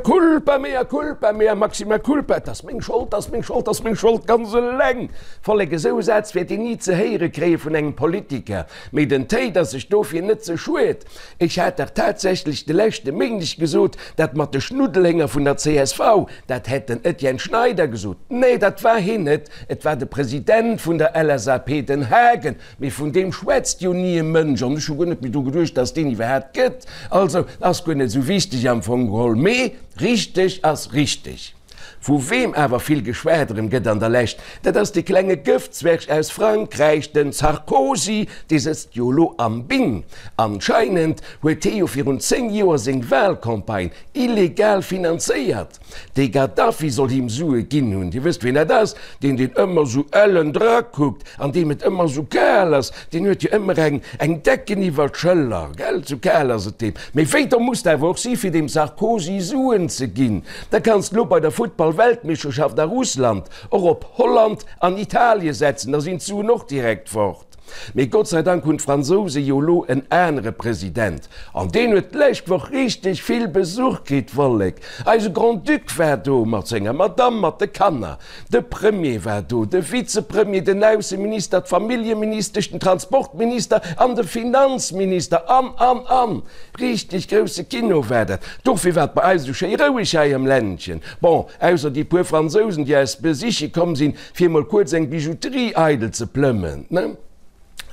Culpa, mea culpa, mea maxima culpa, et ass meng Schold, et ass meng Schold, et ass meng Schold, ganz eleng. Vollek, esou Sätz wäert een ni ze héiere kréie vun engem Politiker. Mee den Téid ass sech dofir net ze schued. Ech hat dach tatsächlech de leschte Méindeg gesot, dat mat de Schnuddelhénger vun der csv, dat hätt den Etienne Schneider gesot. Nee, dat war hien net, et war de President vun der LSAP, den Haagen. Mee vun deem schwätzt jo ni e Mënsch an ech hu guer net méi dru geduecht, dass deen iwwerhaapt gëtt. Also ass guer net esou wichteg am Fong geholl. Mee richteg ass richteg. Vu weem awer vill geschwat erëm gëtt an der Lescht, dat ass dee klenge Gëftzwerg aus Frankräich, den Sarkozy. Dee sëtzt jo elo am Bing. Anscheinend huet hee jo virun 10 Joer seng Wahlcampagne illegal finanzéiert. De Gaddafi soll him Sue ginn hunn. Dir wësst wien dat ass, deen deen ëmmer sou ellen drakuckt an deem et ëmmer sou kal ass. Deen huet jo ëmmer eng eng Decken iwwer d'Schëller, gell, sou kal ass et deem. Mee wéi domm muss de awer och si fir dem Sarkozy Suen ze ginn. Da kanns de lo bei der Futtball-Weltmeeschterschaft a Russland och op Holland an Italie setzen, da sinn d'Suen och direkt fort. Mee Gott sei Dank hunn d'Fransouse jo elo en anere President. An deen huet d'lescht Woch richteg vill Besuch kritt, Vollek. Eise Grand-Duc war do mat senger Madamm, mat de Kanner. De Premier war do, de Vizepremier, den Ausseminister, d'Familljeministesch, den Transportminister an de Finanzminister an, an, an. Richteg grousse Kino war dat. Dofir war et bei eis esou schéi roueg hei am Ländchen. Bon, ausser déi puer Fransousen, déi eis besiche komm sinn, fir mol kuerz eng Bijouterie eidel ze plëmmen, ne?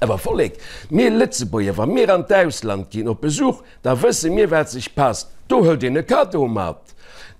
Awer Vollek, mir Lëtzebuerger, wa mir an d'Ausland ginn op Besuch, da wësse mir wat sech passt, do hëlt een e Cadeau mat.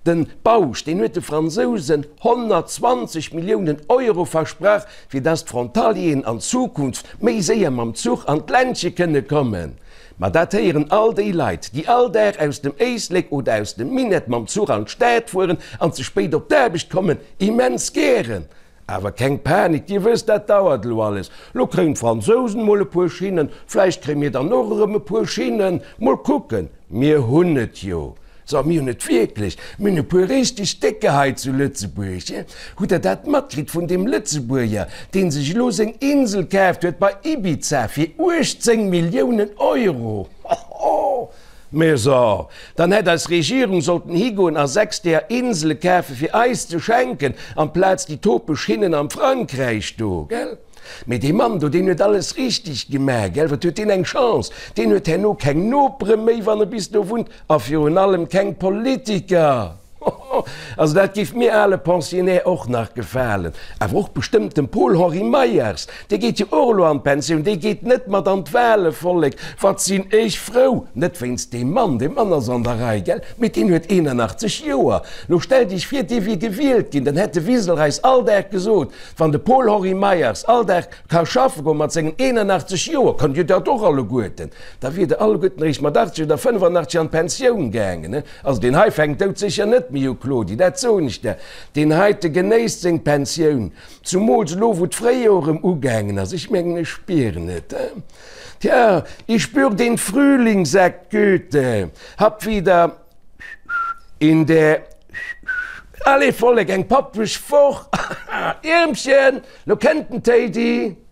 Den Bausch, deen huet de Fransousen 120 Milliounen Euro versprach, fir dass d'Frontalieren an Zukunft méi séier mam Zuch an d'Ländche kënne kommen. Ma dat héieren all déi Leit, déi all Dag aus dem Éislek oder aus dem Minett mam Zuch an d'Stad fueren an ze spéit op d'Aarbecht kommen, immens gären. Awer keng Panik, Dir wësst, dat dauert elo alles. Lo kréien d'Fransousen mol e puer Schinnen, vläicht kréie mir dann och erëm e puer Schinnen. Mol kucken, mir hunn et jo. So, mir hunn et wierklech, mir hunn e puer richteg Décker hei zu Lëtzebuerg. Hutt Der dat matkritt vun deem Lëtzebuerger, dee sech elo seng Insel kaaft huet bei Ibiza fir 18 Milliounen Euro? Hoho! Mä so, dann hätt eis Regierung sollten higoen a 6 deeër Insele kafe fir eis ze schenken, amplaz déi topeg Schinnen am Frankräich do, gell? Mee dee Mann do, deen huet alles richteg gemaach, gell? Wat huet deen eng Chance! Deen huet herno keng Nopere méi, wann e bis do wunnt, a virun allem keng Politiker! Hoho! Also dat géif mir ale Pensionnaire och nach gefalen. Awer och bestëmmt dem Paul-Henri Meyers, dee geet jo och elo an d'Pensioun, dee geet net mat an d'Wale, Vollek, wat sinn ech frou! Net wéinst deem Mann, dee Mann ass an der Rei, gell? Mee deen huet 81 Joer. Lo stellt Iech vir, dee wier gewielt ginn, dann hätt de Wiseler eis all Dag gesot, Wann de Paul-Henri Meyers all Dag ka schaffe goen mat sengen 81 Joer, kënnt Dir dat och alleguerten, da wier Der alleguerten eréischt mat 80 oder 85 an d'Pensioun gaangen. Also deen hei fänkt doudsécher net méi u, Claudie, dat soen ech der. Deen heite genéisst seng Pensioun, zumools elo wou d'Fréijoer erëm ugaangen ass. Ech mengen, ech spieren et. Tja, ich spür den Frühling, sagt Goethe, hab wieder in der Allez Vollek, eng pappeg Woch! Iermchen, lo kennt den Téidi!